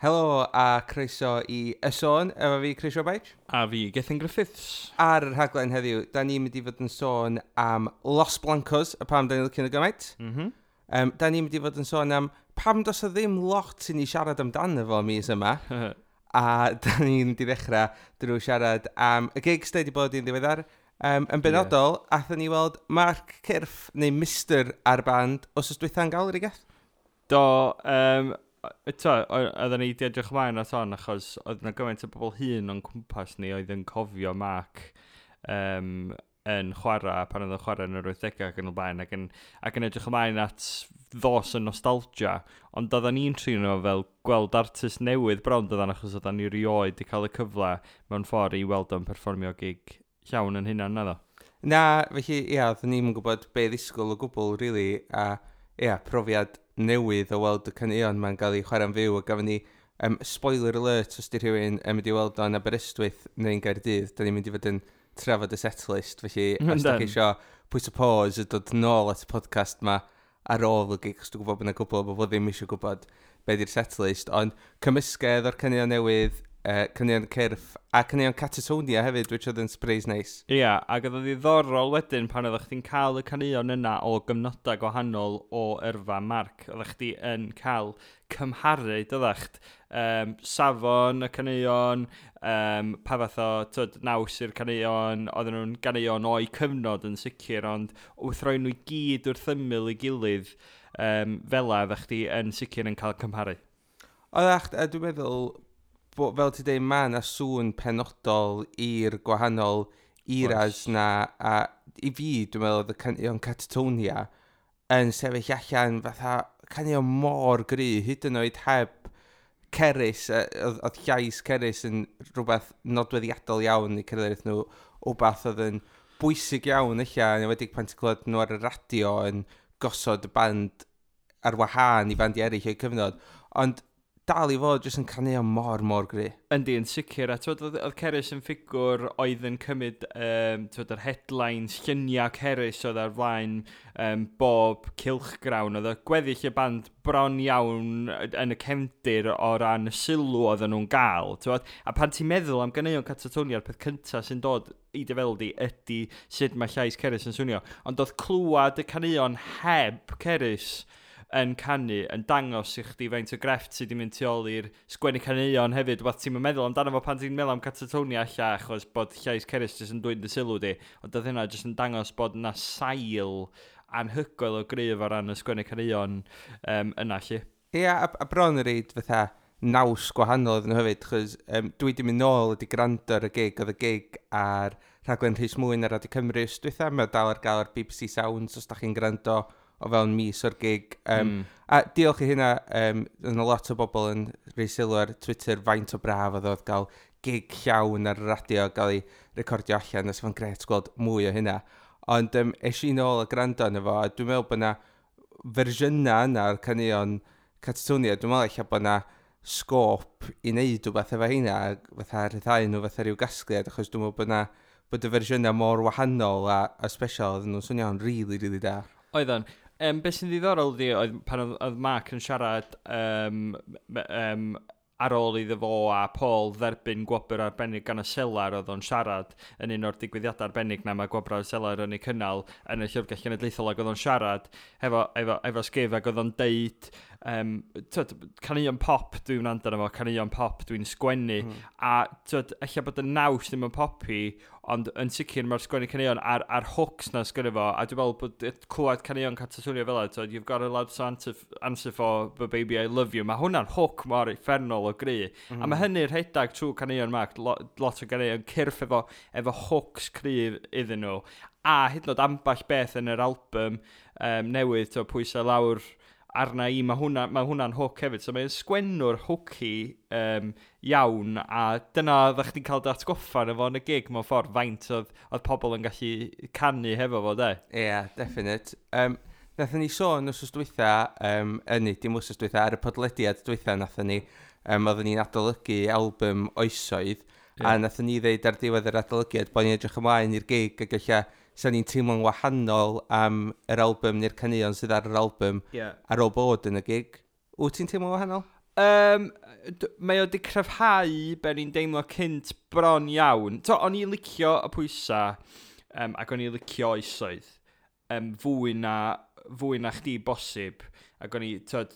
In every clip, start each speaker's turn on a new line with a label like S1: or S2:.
S1: Helo a croeso i Y Sôn, efo fi Chris Robaich.
S2: A fi, Gethin Griffiths.
S1: Ar y rhaglen heddiw, da ni'n mynd i fod yn sôn am Los Blancos, a pam da ni'n licio nhw gymaint. Da ni'n mynd i fod yn sôn am pam does o ddim lot i ni siarad amdano fo mis yma. A da ni'n mynd i ddechrau drwy siarad am y gigs da wedi bod i'n ddiweddar. Yn benodol, yeah, athon ni weld Mark Cyrff, neu Mr a'r band, wythnos dwytha'n Galeri, Geth?
S2: Do, eto, oedden ni wedi edrych ymlaen at hon, achos oedd yna gymaint o bobl hŷn o'n cwmpas ni oedd yn cofio Mark yn chwarae, pan oedd yn chwarae yn yr 80au ac yn y blaen, ac yn edrych ymlaen at ddos y nostalgia. Ond oedden ni'n trin o fel gweld artist newydd bron doedden, achos oedden ni rioed wedi cael y cyfle mewn ffordd i weld o'n perfformio gig llawn yn hynna, naddo?
S1: Na, felly, ia, oedden ni'n gwybod be ddisgwyl o gwbl, really, a ia, profiad newydd o weld y caneuon ma'n gael ei chwarae'n fyw, a gafon ni, spoiler alert, os di rhywun yn mynd i weld o'n Aberystwyth neu'n Gaerdydd, da ni'n mynd i fod yn trafod y setlist, felly os da chi eisiau pwyso pause a dod nôl at y podcast ma ar ôl y gig, os dwi'n gwybod bod yna gwbl o bobl ddim eisiau gwybod be di'r setlist, ond cymysgedd o'r caneuon newydd, caneuon Cyrff, a caneuon Catatonia hefyd, which oedd yn surprise nice.
S2: Ia, yeah, ac oedd yn ddiddorol wedyn pan oeddech chdi'n cael y caneuon yna o gyfnodau gwahanol o yrfa Mark. Oeddech chdi yn cael cymharu, doeddech? Safon y caneuon, pa fath o, tyd, naws i'r caneuon, oedden nhw'n ganeuon o'i cyfnod yn sicr, ond wrth roi nhw i gyd wrth ymyl i gilydd, fel oeddech chdi yn sicr yn cael cymharu.
S1: Oeddech, a dwi'n meddwl, bo, fel ti dweud, mae yna sŵn penodol i'r gwahanol eras na, a i fi, dwi'n meddwl, oedd y caneuon Catatonia yn sefyll allan fatha caneuon mor gry, hyd yn oed heb Cerys, oedd llais Cerys yn rhywbeth nodweddiadol iawn i cerddoriaeth nhw, wbath oedd yn bwysig iawn eich, yn enwedig pan ti'n clywed nhw ar y radio yn gosod y band ar wahân i bandiau eraill o'i cyfnod. Ond dal i fod jyst yn caneuon mor, mor gry.
S2: Yndi, yn sicr. A twyd, oedd Cerys yn ffigwr oedd yn cymryd twyd, yr headlines, lluniau Cerys oedd ar flaen bob cylchgrawn. Oedd y gweddill y band bron iawn yn y cefndir o ran y sylw oedden nhw'n gael. Twyd. A pan ti'n meddwl am ganeuon Catatonia, peth cyntaf sy'n dod i dy feddwl di ydy sut mae llais Cerys yn swnio. Ond oedd clywed y caneuon heb Cerys yn canu yn dangos i chdi faint o grefft sydd wedi mynd tu ôl i'r sgwennu caneuon hefyd. Wbath ti'n meddwl amdano fo pan ti'n meddwl am Catatonia alla, achos bod llais Cerys jyst yn dwyn dy sylw di. Ond oedd hynna jyst yn dangos bod yna sail anhygoel o gryf o ran y sgwennu caneuon yna, lle.
S1: Ie, a bron yn reid fatha naws gwahanol iddyn nhw hefyd, chos dwi wedi mynd nôl wedi gwrando ar y gig, oedd y gig ar rhaglen Rhys Mwyn ar Radio Cymru wsos dwytha, mae o dal ar gael ar BBC Sounds os da chi'n gwrando o fewn mis o'r gig. A diolch i hynna, yna lot o bobl yn rhoi sylw ar Twitter faint o braf oedd gael gig llawn ar y radio gael ei recordio allan, a fo'n gret gweld mwy o hynna. Ond es i nôl a gwrando arno fo, a dwi'n meddwl bod yna fersiynau yna o'r caneuon Catatonia, dwi'n meddwl ella bod yna sgôp i wneud rhywbeth efo heina, fatha rhyddhau nhw fatha rhyw gasgliad, achos dwi'n meddwl bod yna bod y fersiynau mor wahanol a special, oedden nhw'n swnio'n really, really da.
S2: Oedden. Beth sy'n ddiddorol ydi, oedd pan oedd Mark yn siarad ar ôl iddo fo a Paul dderbyn gwobr arbennig gan y Selar, oedd o'n siarad yn un o'r digwyddiadau arbennig na mae gwobrau Selar yn ei cynnal yn y Llyfrgell Genedlaethol, ac oedd o'n siarad efo Sgif ac oedd o'n deud, twyd, caneuon pop dwi'n wrando arno fo, caneuon pop dwi'n sgwennu, a twyd, ella bod y naws ddim yn poppy, ond yn sicr mae'r sgwennu caneuon a'r hooks na sgwennu fo, a dwi'n meddwl bod clywed caneuon Catatonia fel 'na, twyd, "You've got a lot to answer for, but baby I love you", mae hwnna'n hook mor uffernol o gry. A mae hynny'n rhedeg trwy caneuon Mark, lot o ganeuon Cyrff efo hooks cryf iddyn nhw. A hyd yn oed ambell beth yn yr album newydd, to, "Pwysau Lawr Arna I", mae hwnna'n hook hefyd. So mae'n sgwennwr hooky iawn, a dyna oeddech chdi'n cael dy atgoffa yn efo yn y gig mewn ffordd, faint oedd pobl yn gallu canu hefo fo, de.
S1: Ie, yeah, definite. Nathon ni sôn wsos dwytha, yn dim wsos dwytha, ar y podlediad dwytha nathon ni, oedden ni'n adolygu album Oesoedd, a nathon ni ddeud ar diwedd yr adolygiad bod ni'n edrych ymlaen i'r gig ac ella sa ni'n teimlo'n wahanol am yr album neu'r caneuon sydd ar yr album ar ôl bod yn y gig. Wyt ti'n teimlo'n wahanol?
S2: Mae o wedi cryfhau be o'n i'n deimlo cynt bron iawn. To, o'n i'n licio y pwysa ac o'n i'n licio Oesoedd fwy na chdi bosib. Ac o'n i, tyd,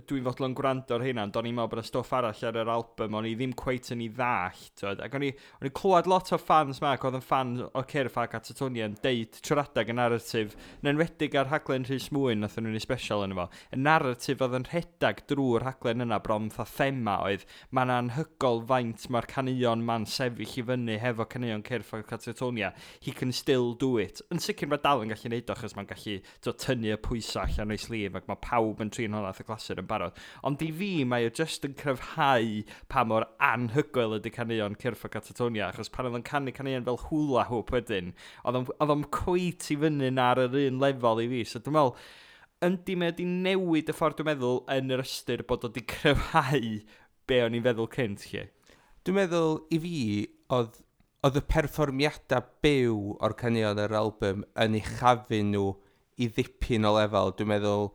S2: dwi'n fodlon gwrando ar hynna, ond o'n i'n meddwl bod y stwff arall ar yr album, o'n i ddim cweit yn ei ddallt, tyd. Ac o'n i clywed lot o fans ma, ac oedd yn fan o Cyrff a Catatonia yn deud trwy'r adeg y narratif, yn enwedig ar rhaglen Rhys Mwyn, nath nhw'n ei special yn efo, y narratif oedd yn rhedag drwy'r rhaglen yna bron fatha thema oedd, mae'n anhygoel faint mae'r caneuon ma'n sefyll i fyny hefo caneuon Cyrff a Catatonia. He can still do it. Yn sicr mae dal yn gallu neud o, achos mae'n gallu to, tynnu y pwysau allan o'i sleeve, ac mae pawb yn trin hwnna fatha clasur yn barod. Ond i fi, mae o just yn cryfhau pa mor anhygoel ydy caneuon Cyrff a Catatonia, achos pan oedd o'n canu caneuon fel Hula Hoop wedyn, oedd o'n cweit i fyny ar yr un lefel i fi. So dwi'n meddwl, yndi, mae wedi newid y ffordd dwi'n meddwl yn yr ystyr bod o wedi cryfhau be o'n i'n feddwl cynt, lle.
S1: Dwi'n meddwl i fi, oedd y perfformiadau byw o'r caneuon yr album yn uchafu nhw i ddipyn o lefel. Dwi'n meddwl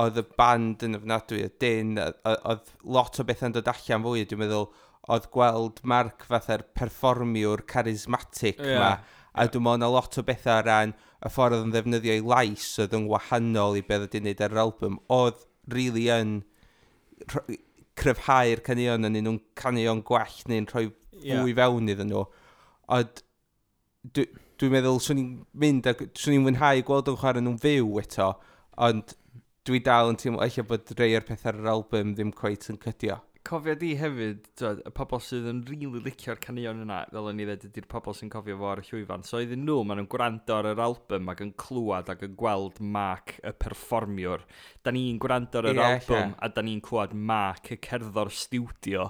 S1: oedd y band yn ofnadwy, y dyn, oedd lot o bethau'n dod allan fwy. Dwi'n meddwl oedd gweld Mark fatha'r perfformiwr charismatic ma, a dwi'n meddwl na lot o bethau o ran y ffordd oedd yn ddefnyddio ei lais oedd yn wahanol i beth oedd wedi'i wneud ar yr album, oedd really yn cryfhau'r caneuon yn un nhw'n caneuon gwell neu'n rhoi fwy fewn iddyn nhw. Ond dwi'n meddwl swn i'n mynd ac swn i'n mwynhau gweld o'n chwarae nhw'n fyw eto, ond dwi dal yn teimlo eich bod rei o'r pethau ar yr album ddim cweit yn cydio.
S2: Cofio di hefyd, twod, y pobl sydd yn rili really licio'r caneuon yna, fel o'n i ddweud, ydy'r pobl sy'n cofio fo ar y llwyfan. So iddyn nhw, maen nhw'n gwrando ar yr album ac yn clywed ac yn gweld Mark y perfformiwr. Da ni'n gwrando ar yr album a da ni'n clywed Mark y cerddor stiwdio.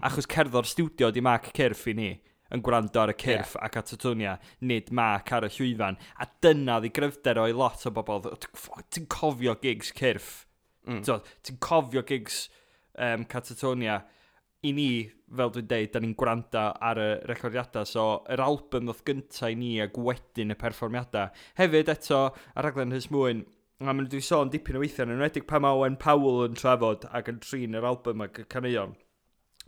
S2: Achos cerddor stiwdio di Mark Cyrff i ni yn gwrando ar y Cyrff a Catatonia, nid Mark ar y llwyfan. A dyna ddi gryfder o'i lot o bobl. Ti'n cofio gigs Cyrff. So, ti'n cofio gigs Catatonia. I ni, fel dwi'n deud, da ni'n gwrando ar y recordiadau, so yr album ddoth gynta i ni ac wedyn y perfformiadau. Hefyd eto, ar raglen Rhys Mwyn, a maen nhw wedi sôn dipyn o weithiau, yn enwedig pan mae Owen Powell yn trafod ac yn trin yr album ac y caneuon.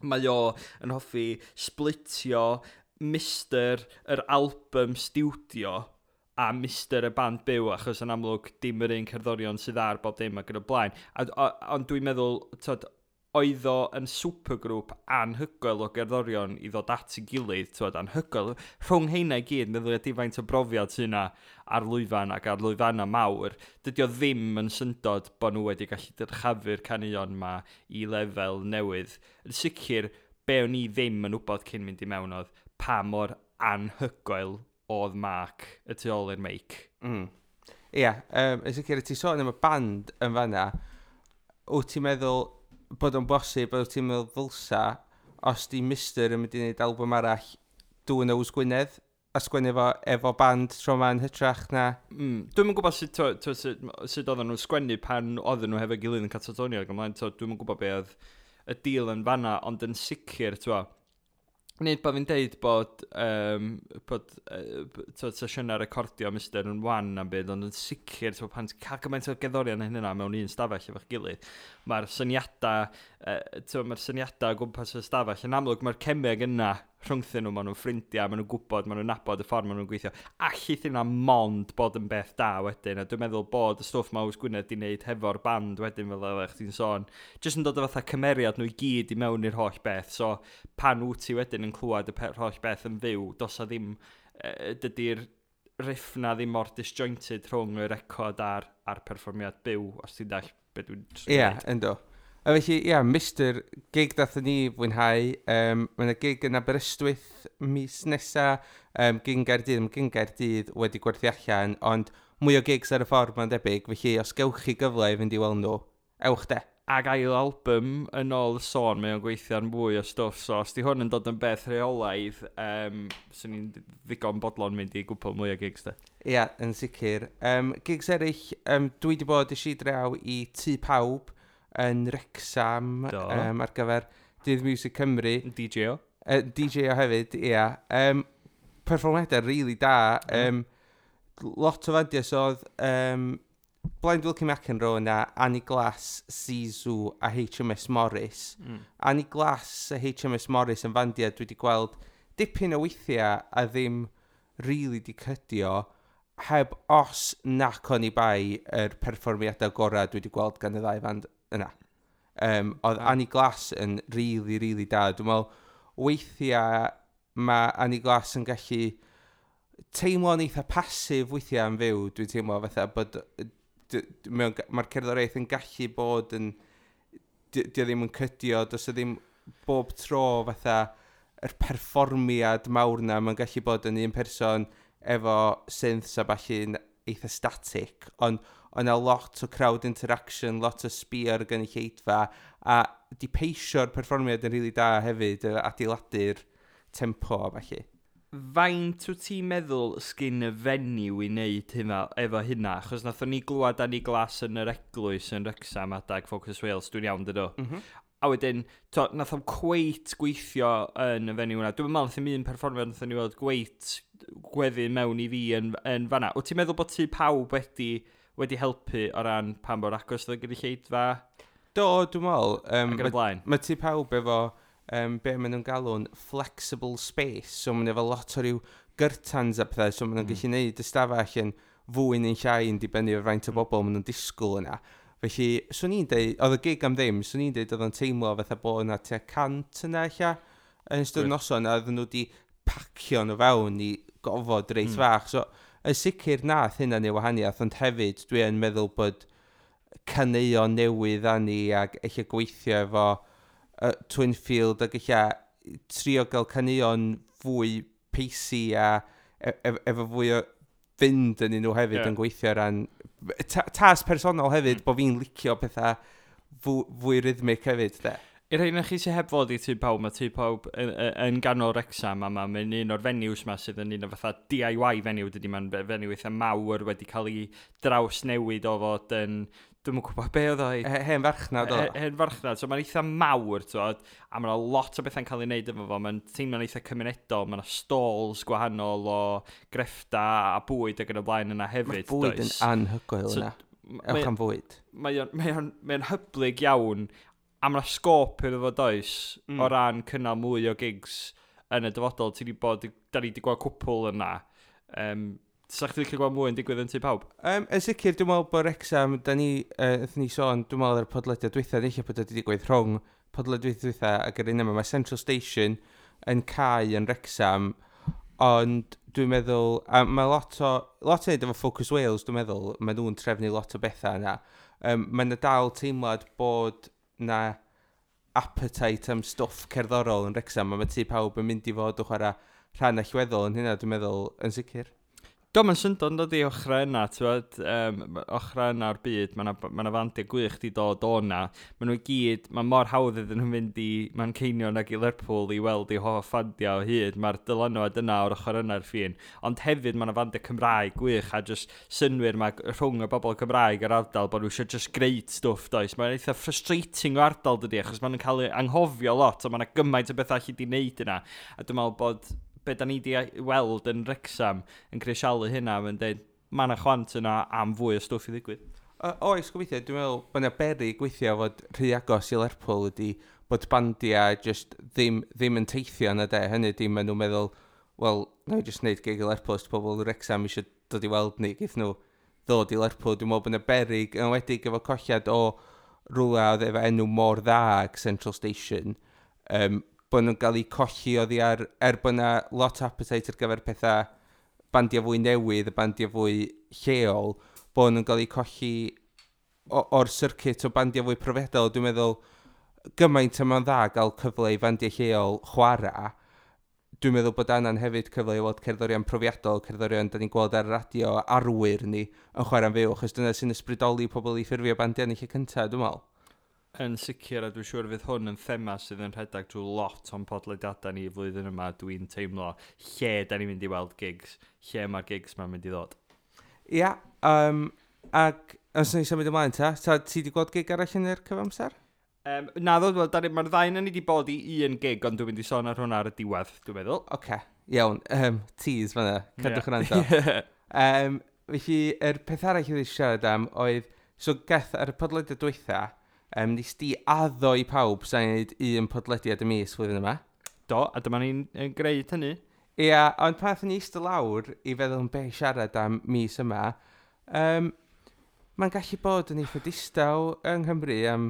S2: Mae o yn hoffi splitio Mister yr album stiwdio a Mister y band byw, achos yn amlwg dim yr un cerddorion sydd ar bob dim ac yn y blaen. A ond dwi'n meddwl, tod, oedd o yn supergroup anhygoel o gerddorion i ddod at ei gilydd, tywed, anhygoel. Rhwng heina i gyd, meddwl ydy faint o brofiad sy'n yna ar lwyfan ac ar lwyfanna mawr, dydy o ddim yn syndod bod nhw wedi gallu dyrchafu'r caneuon ma i lefel newydd. Yn sicr, be o'n i ddim yn wybod cyn mynd i mewn oedd pa mor anhygoel oedd Mark y tu ôl i'r meic.
S1: Ie, yeah, yn sicr, ti sôn am y band yn fanna, wyt ti'n meddwl bod o'n bosib, wyt ti'n meddwl ddylsa, os di Mister yn mynd i wneud album arall, do Yws Gwynedd, a sgwennu efo band tro ma'n hytrach na?
S2: Dwi'm yn gwybod sut oedden nhw'n sgwennu pan oedden nhw hefo gilydd yn Catatonia ac ymlaen, dwi'm yn gwybod be oedd y deal yn fanna, ond yn sicr, t'wo, nid bod fi'n deud bod sesiynau recordio Mister yn wan am byd, ond yn sicr, t'wo, pan ti'n cael gymaint o gerddorion hynny mewn un stafell efo'ch gilydd, mae'r syniadau o gwmpas y stafell, yn amlwg mae'r cemeg yna rhyngthyn nhw, maen nhw'n ffrindiau, maen nhw'n gwybod, maen nhw'n nabod y ffordd maen nhw'n gweithio. Allith yna mond bod yn beth da wedyn, a dwi'n meddwl bod y stwff mae Yws Gwynedd di wneud hefo'r band wedyn fel oeddech chdi'n sôn, jyst yn dod o fatha cymeriad nhw i gyd i mewn i'r holl beth, so pan wyt ti wedyn yn clywed y holl beth yn fyw, does a ddim, dydy'r riff na ddim mor disjointed rhwng y record a'r perfformiad byw, os ti'n dall beth dwi'n
S1: trio Ie,
S2: ddeud.
S1: Ynddo. A felly, ie, yeah, Mister, gig dathon ni fwynhau. Mae yna gig yn Aberystwyth mis nesa, gig yn Gaerdydd, mae gig yn Gaerdydd wedi gwerthu allan, ond mwy o gigs ar y ffordd mae'n debyg, felly os gewch chi gyfle i fynd i weld nhw, ewch de.
S2: Ac ail album yn ôl y sôn, mae o'n gweithio ar mwy o stwff, so os di hwn yn dod yn beth rheolaidd, swn i'n ddigon bodlon mynd i gwpl mwy o gigs de.
S1: Ie, yeah, yn sicr. Gigs eraill, dwi wedi bod eisiau draw i Tŷ Pawb yn Wrexham ar gyfer Dydd Music Cymru.
S2: DJ o.
S1: DJ o hefyd, ie. Yeah. Perfformiadau really da. Lot o fandiau, so oedd Blind Wilkie McEnroe yna, Annie Glass, Zizou a HMS Morris. Annie Glass a HMS Morris yn fandiau dwi wedi gweld dipyn o weithiau a ddim really di cydio, heb os nac oni bai yr perfformiadau gorau dwi wedi gweld gan y ddau fand yna. Oedd Annie Glass yn really, really da. Dwi'n meddwl, weithiau mae Annie Glass yn gallu teimlo'n eitha pasif weithiau yn fyw. Dwi'n teimlo fatha bod mae'r cerddoriaeth yn gallu bod yn, di o ddim yn cydio, does o ddim bob tro fatha yr perfformiad mawr na, mae'n gallu bod yn un person efo synths a ballu'n eitha static, ond o'na lot o crowd interaction, lot o sbio ar y gynulleidfa, a di peisio'r perfformiad yn rili da hefyd, adeiladu'r tempo a ballu.
S2: Faint wyt ti'n meddwl sgyn y fenyw i wneud hynna, efo hynna? Achos nathon ni glwad Annie Glass yn yr eglwys yn Wrexham adag Focus Wales, dwi'n iawn dydw?
S1: Mm.
S2: A wedyn, to, nath o'm cweit gweithio yn y fenyw hwnna. Dwi'n meddwl nath i'm un perfformiad nathon ni weld gweit gweddu mewn i fi yn fanna. Wyt ti'n meddwl bod Tŷ Pawb wedi helpu o ran pan mor agos oedd y gynulleidfa
S1: Do, dwi'n meddwl.
S2: Ac yn y blaen?
S1: Mae Tŷ Pawb efo be maen nhw'n galw'n flexible space, so maen nhw efo lot o ryw gyrtans a pethau, so maen nhw'n gallu neud ystafell yn fwy neu'n llai yn dibynnu ar faint o bobl maen nhw'n disgwyl yna. Felly, swn i'n deud, oedd y gig am ddim, swn i'n deud oedd o'n teimlo fatha bod yna tua 100 yna ella yn ystod noson, a oedden nhw wedi pacio nhw fewn i gofod reit fach. So, yn sicr nath hynna neu wahaniaeth, ond hefyd dwi yn meddwl bod caneuon newydd â ni ac eich gweithio efo Twinfield ac eich trio gael caneuon fwy pacey a efo fwy o fynd yn nhw hefyd yn gweithio ran tas personol hefyd, bod fi'n licio pethau fwy rhythmic hefyd, de.
S2: I'r rhai chi sydd heb fod i Tŷ Pawb, mae Tŷ Pawb yn ganol Wrexham a mae'n un o'r venues ma sydd yn un o fatha DIY venue, dydy, mae'n venue eitha mawr wedi cael ei drawsnewid o fod yn, dwi'm yn gwybod be oedd o
S1: Hen farchnad oedd o.
S2: Hen farchnad, so mae'n eitha mawr, t'wod, a mae'n lot o bethau'n cael ei wneud efo fo, mae'n teimlo'n eitha cymunedol, mae'n stalls gwahanol o greffta a bwyd ac yn y blaen yna hefyd.
S1: Mae'r bwyd yn
S2: does?
S1: anhygoel
S2: So,
S1: yna. Ewch am fwyd.
S2: Mae o'n hyblyg iawn, a mae'n sgôp iddo fo does, o ran cynnal mwy o gigs yn y dyfodol. Ti 'di bod, da ni wedi gweld cwpl yna. Sa chdi licio gweld mwy yn digwydd yn Tŷ Pawb?
S1: Yn sicr, dwi'n meddwl bod Wrexham, da ni, wnaethon ni sôn, dwi'n meddwl ar y podlediad dwytha, neu bod wedi digwydd rhwng podlediad dwytha ac yr un yma, mae Central Station yn cau yn Wrexham, ond dwi'n meddwl, a mae lot o neud efo Focus Wales, dwi'n meddwl, mae nhw'n trefnu lot o bethau yna. Mae yna dal teimlad bod na appetite am stwff cerddorol yn Wrexham, a mae Tŷ Pawb yn mynd i fod o chwarae rhan allweddol yn hynna, dwi'n meddwl, yn sicr.
S2: Do, mae'n syndod yn dod i ochrau yna, ti'n ochrau yna o'r byd, mae yna ma fandiau gwych di dod o na. Maen nhw i gyd, mae mor hawdd iddyn nhw fynd i Manceinion ac i Lerpwl i weld eu hoff fandiau o hyd. Mae'r dylanwad yna o'r ochr yna'r ffin. Ond hefyd mae yna fandiau Cymraeg gwych a just synwyr mae rhwng y bobl Cymraeg yr ardal bod nhw eisiau just great stwff, does. Mae'n eitha frustrating o ardal dydy, achos maen nhw'n cael ei anghofio lot, a mae yna gymaint o bethau allu di wneud yna. A dwi'n meddwl bod be da ni wedi weld yn Wrexham yn crisialu hynna, mae'n dweud, mae yna chwant yna am fwy o stwff i ddigwydd.
S1: Oes, gobeithio, dwi'n meddwl bod yna beryg weithio fod rhy agos i Lerpwl ydy bod bandiau just ddim yn teithio yna de. Hynny ydy, maen nhw'n meddwl, wel, na i just wneud gig i Lerpwl, os 'di pobl Wrexham eisiau dod i weld ni, geith nhw ddod i Lerpwl. Dwi'n meddwl bod yna beryg, yn enwedig efo colliad o rhywle oedd efo enw mor dda ag Central Station, bod nhw'n cael eu colli oddi ar, er bod yna lot o appetite ar gyfer pethau bandiau fwy newydd, y bandiau fwy lleol, bod nhw'n cael eu colli o'r circuit o bandiau fwy profiadol. Dwi'n meddwl, gymaint yma'n dda gael cyfle i fandiau lleol chwarae, dwi'n meddwl bod anna'n hefyd cyfle i weld cerddorion profiadol, cerddorion da ni'n gweld ar y radio, arwyr ni yn chwarae'n fyw, achos dyna sy'n ysbrydoli pobl i ffurfio bandiau yn y lle cyntaf, dwi'n meddwl.
S2: Yn sicr, a dwi'n siŵr fydd hwn yn thema sydd yn rhedeg drwy lot o'n podlediadau ni flwyddyn yma, dwi'n teimlo lle da ni'n mynd i weld gigs, lle mae'r gigs ma'n mynd i ddod.
S1: Ia, ac os ni symud ymlaen ta, ta ti wedi gweld gig arall yn yr cyfamser?
S2: Na ddod, wel, mae'r ddau ni wedi bod i un gig, ond dwi'n mynd i sôn ar hwnna ar y diwedd, dwi'n meddwl.
S1: Oce, okay, iawn, tease fan'na, cadwch yn rando. Felly, yr peth arall oedd eisiau siarad am oedd, so Geth, ar y podlediad dwytha, nes di addo i pawb sa'n gwneud un podlediad y mis flwyddyn yma.
S2: Do, a dyma ni'n gwneud hynny.
S1: Ia, ond pan aethon ni eistedd lawr i feddwl am be i siarad am mis yma, mae'n gallu bod yn eitha distaw yng Nghymru am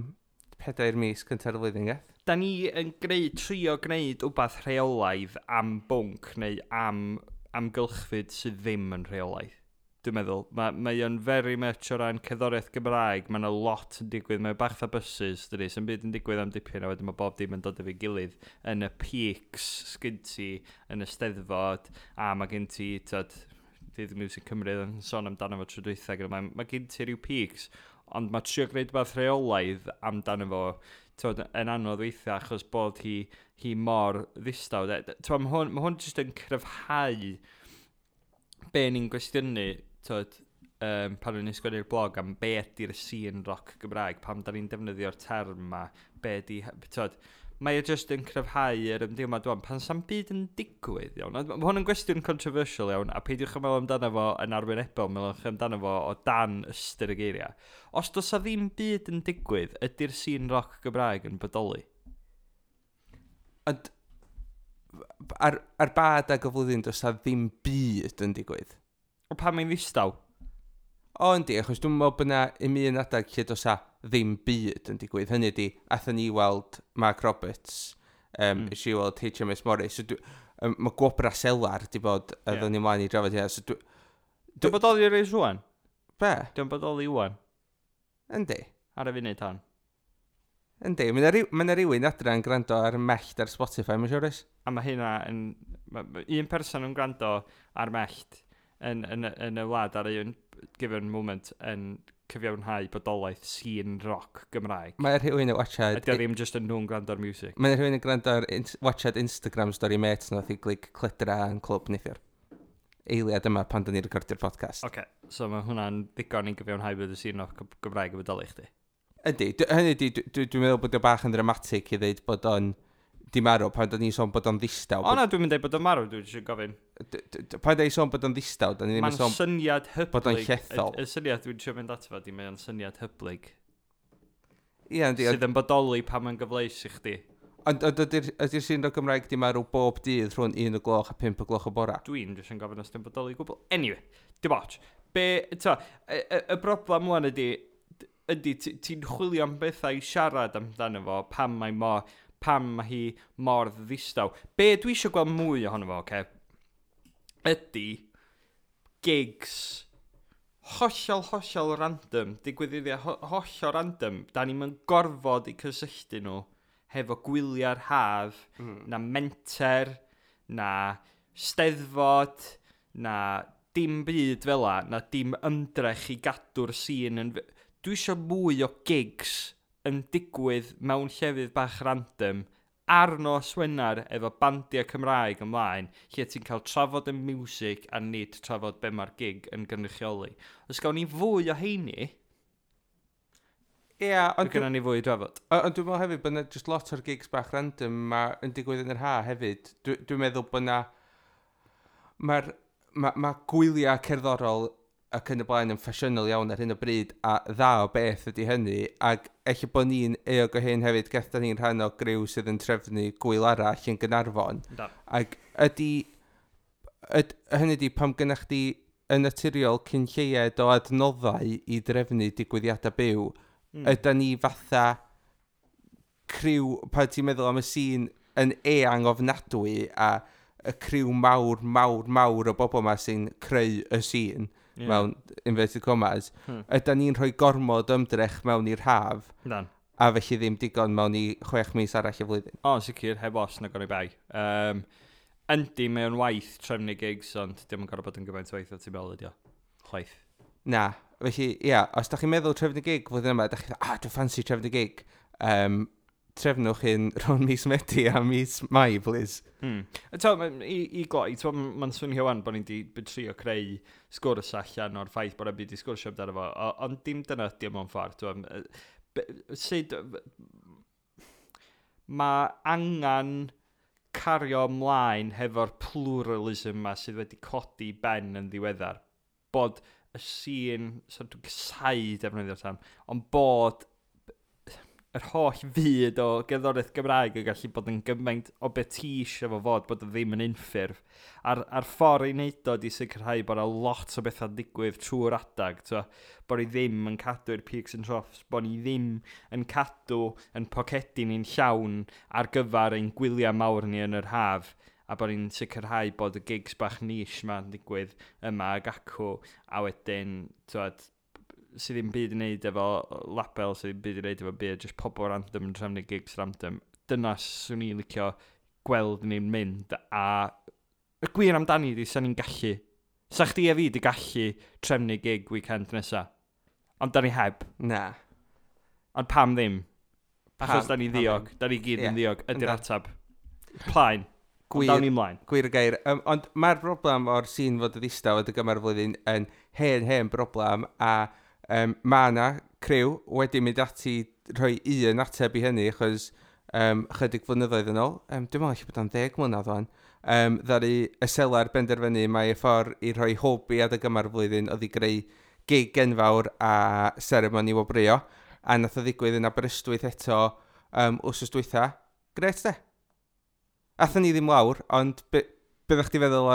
S1: 4 mis cynta'r flwyddyn, Geth.
S2: Da ni yn trio gwneud wbath rheolaidd am bwnc neu am amgylchfyd sydd ddim yn rheolaidd. Dwi'n meddwl, mae o'n very much o ran cerddoriaeth Gymraeg, mae yna lot yn digwydd, mae bach fatha buses, dydy, sy'n byd yn digwydd am dipyn, a wedyn mae bob dim yn dod efo'i gilydd yn y peaks sgyn ti yn y Steddfod, a mae gen ti, tyd, Dydd Music Cymru yn sôn amdano fo tro dwytha, gyda mae gen ti rhyw peaks, ond mae trio gwneud rhywbeth rheolaidd amdano fo, tyd, yn anodd weithiau achos bod hi mor ddistaw. Tyd, mae hwn jyst yn cryfhau be ni'n gwestiynu, tyd, pan o'n i'n sgwennu'r blog am be ydy'r scene rock Gymraeg, pam da ni'n defnyddio'r term ma, be ydy, tyd, mae e jyst yn cryfhau yr ymdeimlad dwi'n pan sa'm byd yn digwydd, iawn. Mae hwn yn gwestiwn controversial iawn, a peidiwch yn meddwl amdano fo yn arwynebol, meddwl amdano fo o dan ystyr y geiriau. Os does a ddim byd yn digwydd, ydy'r scene rock Gymraeg yn bodoli?
S1: Ond ar ba adeg o flwyddyn does a ddim byd yn digwydd?
S2: O pan mae'n ddistaw?
S1: O, yndi, achos dwi'n meddwl bod yna un un adeg lle does a ddim byd yn digwydd. Hynny ydi, athon ni weld Mark Roberts, mm. i weld HMS Morris. So, mae Gwobra Selar di bod, yeah. Ni mlaen i drafod hynna. So,
S2: Dwi'n bodoli ar ei rwan?
S1: Be?
S2: Dwi'n bodoli rwan.
S1: Yndi.
S2: Ar y funud hon.
S1: Yndi, mae yna rhywun adra yn gwrando ar Mellt ar Spotify, mae'n siŵr oes?
S2: A mae hynna yn... Un person yn gwrando ar Mellt yn y wlad ar un given moment yn cyfiawnhau bodolaeth scene rock Gymraeg.
S1: Mae rhywun yn watchad...
S2: Ydy o ddim just yn nhw'n gwrando ar music.
S1: Mae rhywun yn gwrando ar watchad Instagram story mates nath i glig Cledra yn clwb neithiwr. Eiliad yma pan dyn ni'n recordio'r podcast.
S2: Oce, okay, so mae hwnna'n ddigon i gyfiawnhau bod y scene rock Gymraeg yn bodoli chdi.
S1: Ydy, hynny ydy, dwi'n meddwl bod o bach yn dramatic i ddeud bod o'n di marw pan da ni'n sôn bod o'n ddistaw.
S2: O na, dwi'n mynd dweud bod o'n marw, dwi'n eisiau gofyn.
S1: Pan da ni'n sôn bod o'n ddistaw, da ni ddim yn sôn
S2: syniad hyblyg.
S1: Bod o'n llethol.
S2: Y syniad dwi'n eisiau mynd ato fo, di mae'n syniad hyblyg.
S1: Ie, yndi.
S2: Sydd yn bodoli pan mae'n gyfleus i chdi.
S1: Ond ydy'r sîn o Gymraeg di marw bob dydd rhwng 1 o gloch a 5 o gloch o bora?
S2: Dwi'n jyst yn gofyn os di'n bodoli gwbl. Anyway, dim ots. Be, to, y broblem wan ydy ti'n chwilio am bethau i siarad amdano fo pam mae hi mor ddistaw. Be dwi eisiau gweld mwy ohono fo, oce, ydy gigs hollol random, digwyddiadau hollol random, da ni'n mynd gorfod i cysylltu nhw hefo gwyliau'r haf, na menter, na steddfod, na dim byd fel la, na dim ymdrech i gadw'r sîn yn... Dwi eisiau mwy o gigs yn digwydd mewn llefydd bach random ar nos Wener efo bandiau Cymraeg ymlaen, lle ti'n cael trafod y music a nid trafod be mae'r gig yn gynrychioli. Os gawn ni fwy o heini,
S1: Ie, ond
S2: gynnon ni fwy i drafod.
S1: Ond dwi'n meddwl hefyd bod yna just lot o'r gigs bach random ma yn digwydd yn yr ha hefyd. Dwi'n meddwl bod yna... Mae gwyliau cerddorol ac yn y blaen yn ffasiynol iawn ar hyn o bryd, a dda o beth ydy hynny, ac ella bod ni'n euog o hyn hefyd, gath ni'n rhan o griw sydd yn trefnu gwyl arall yn Gaernarfon.
S2: Da.
S1: Ac ydy, hynny ydy, pam gynnach chdi yn naturiol cyn lleied o adnoddau i drefnu digwyddiadau byw, ydy ni fatha criw, pan ti'n meddwl am y sîn yn eang ofnadwy a y criw mawr, mawr, mawr o bobl yma sy'n creu y sîn, yeah. Mewn inverted commas, ydy ni'n rhoi gormod ymdrech mewn i'r haf,
S2: Dan.
S1: A felly ddim digon mewn i 6 mis arall y flwyddyn.
S2: O, sicr, heb os na goni bai. Yndi, mae o'n waith trefnu gigs, ond dim yn gorfod bod yn gymaint o waith o ti'n meddwl ydi o. Chwaith.
S1: Na, felly, ia, os da chi'n meddwl trefnu gig flwyddyn yma, da chi'n dweud, dwi'n ffansi trefnu gig. Trefnwch hyn rhwng mis Medi a mis Mai, please.
S2: I gloi, mae'n swnio wan bod ni'n di trio creu sgwrs allan o'r ffaith bod e'n byd i sgwrsio amdano fo, ond dim dyna ydi o mewn ffordd. Sut mae angen cario ymlaen hefo'r pluralism ma sydd wedi codi ben yn ddiweddar. Bod y sîn, so dwi'n casáu defnyddio'r term, ond bod yr holl fyd o gerddoriaeth Gymraeg yn gallu bod yn gymaint o beth ti eisiau fo fod, bod o ddim yn unffurf. A'r ffordd i wneud o di sicrhau bod 'na lot o bethau'n digwydd trwy'r adag, t'wo, bod ni ddim yn cadw'r peaks and troughs, bod ni ddim yn cadw yn pocedi ni'n llawn ar gyfer ein gwyliau mawr ni yn yr haf, a bod ni'n sicrhau bod y gigs bach niche ma'n digwydd yma ag acw, a wedyn, t'wod, sydd ddim byd i wneud efo label, sydd ddim byd i wneud efo byd, just pobl random yn trefnu gigs random. Dyna swn i'n licio gweld ni'n mynd, a y gwir amdani di, sa ni'n gallu. Sa chdi a fi di gallu trefnu gig weekend nesa. Ond da ni heb.
S1: Na.
S2: Ond pam ddim? Achos da ni
S1: Pam
S2: ddiog.
S1: ddim?
S2: Da ni gyd yn
S1: Ie,
S2: ddiog. Ydy'r
S1: yndan.
S2: atab. Plaen. Ond dawn ni ymlaen.
S1: Gwir y gair. Ond mae'r broblem o'r sîn fod y ddistaw adeg yma'r flwyddyn yn hen, hen broblem, a mae yna criw wedi mynd ati rhoi un ateb i hynny, achos chydig flynyddoedd yn ôl, dwi'n meddwl allu bod o'n 10 mlynedd wan, ddaru y Selar benderfynu mai y ffordd i rhoi hwb i adeg yma'r flwyddyn oedd i greu gig enfawr a seremoni wobrwyo, a nath o ddigwydd yn Aberystwyth eto wsos dwytha. Gret de. Athon ni ddim lawr, ond be ddech chi feddwl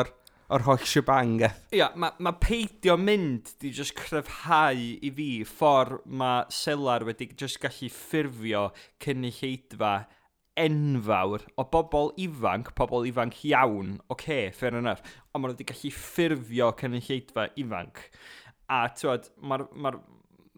S1: o'r holl shebang gath?
S2: Ia, mae ma peidio mynd di just cryfhau i fi ffordd mae Selar wedi just gallu ffurfio cynulleidfa enfawr o bobl ifanc iawn, oce, okay, fair enough, ond maen nhw wedi gallu ffurfio cynulleidfa ifanc. A t'wod,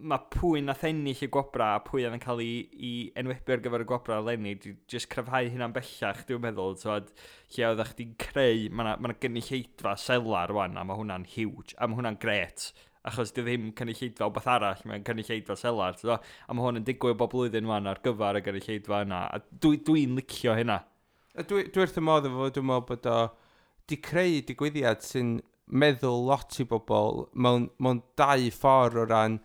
S2: ma pwy nath ennill y gwobra a pwy oedd yn cael ei enwebu ar gyfer y gwobra eleni, di just cryfhau hynna'n bellach, dwi'n meddwl, t'wod, lle oeddech chdi'n creu, mae 'na ma gynulleidfa Selar rwan, a mae hwnna'n huge, a mae hwnna'n gret, achos di ddim cynulleidfa o beth arall, mae'n cynulleidfa Selar, t'wod, a mae hwn yn digwydd bob blwyddyn rwan ar gyfer y gynulleidfa yna, a dwi licio hynna.
S1: A dwi wrth y modd efo fo, dwi'n meddwl bod o di creu digwyddiad sy'n meddwl lot i bobl mewn dau ffordd o ran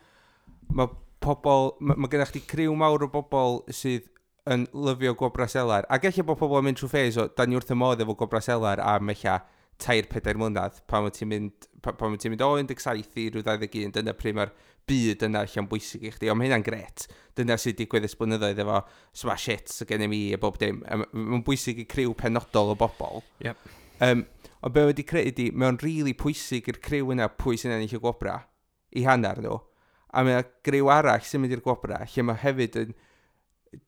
S1: mae pobl, ma gennych chdi criw mawr o bobl sydd yn lyfio Gwobra Selar. Ac ella bod pobl yn mynd trwy phase o, da ni wrth y modd efo Gwobra Selar am ella 3-4 mlynedd, pan wyt ti'n mynd o 17 i ryw 21, dyna pryd mae'r byd yna allan bwysig i chdi, ond mae hynna'n gret. Dyna sydd digwydd ers blynyddoedd efo Smash Hits y gen i a bob dim. Mae'n bwysig i criw penodol o bobl. Ond be wedi creu ydi, mae'n rili really pwysig i'r criw yna pwy sy'n ennill y gwobra, i hanner nhw. A mae 'na griw arall sy'n mynd i'r gwobra, lle mae hefyd yn...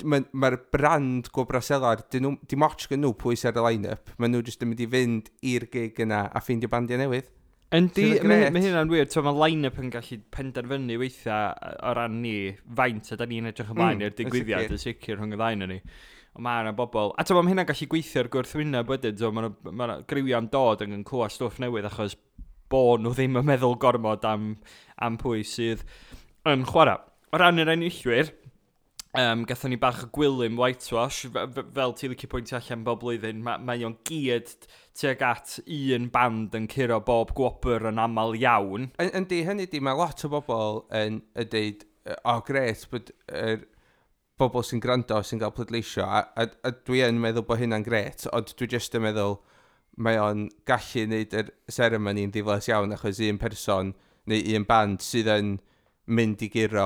S1: Mae'r ma brand Gwobra Selar, dyn nhw, dim ots gen nhw pwy sy'n ar y line-up. Maen nhw jyst yn mynd i fynd i'r gig yna a ffeindio bandiau newydd.
S2: Yndi,
S1: Sydd yn
S2: mae
S1: grêt.
S2: ma hynna'n wir. So, mae line-up yn gallu penderfynu weithiau o ran ni faint a da ni'n edrych ymlaen i'r
S1: yn
S2: digwyddiad
S1: sicr.
S2: yn sicr rhwng y ddau ni. Ond mae yna bobl... A ti'n mae hynna'n gallu gweithio ar gwrthwyneb wedyn. So, mae yna griwiau'n dod yn clywed stwff newydd achos bo nhw ddim yn meddwl gormod am pwy sydd yn chwarae. O ran yr enillwyr, gathon ni bach o Gwilym Whitewash, fel ti licio pwyntio allan bob blwyddyn, mae o'n gyd tuag at un band yn curo bob gwobr yn aml iawn.
S1: Yndi, hynny di, mae lot o bobl yn deud, o gret, bod yr bobl sy'n gwrando sy'n cael pleidleisio, a dwi yn meddwl bod hynna'n gret, ond dwi jyst yn meddwl mae o'n gallu wneud yr seremoni'n ddiflas iawn achos un person neu un band sydd yn mynd i guro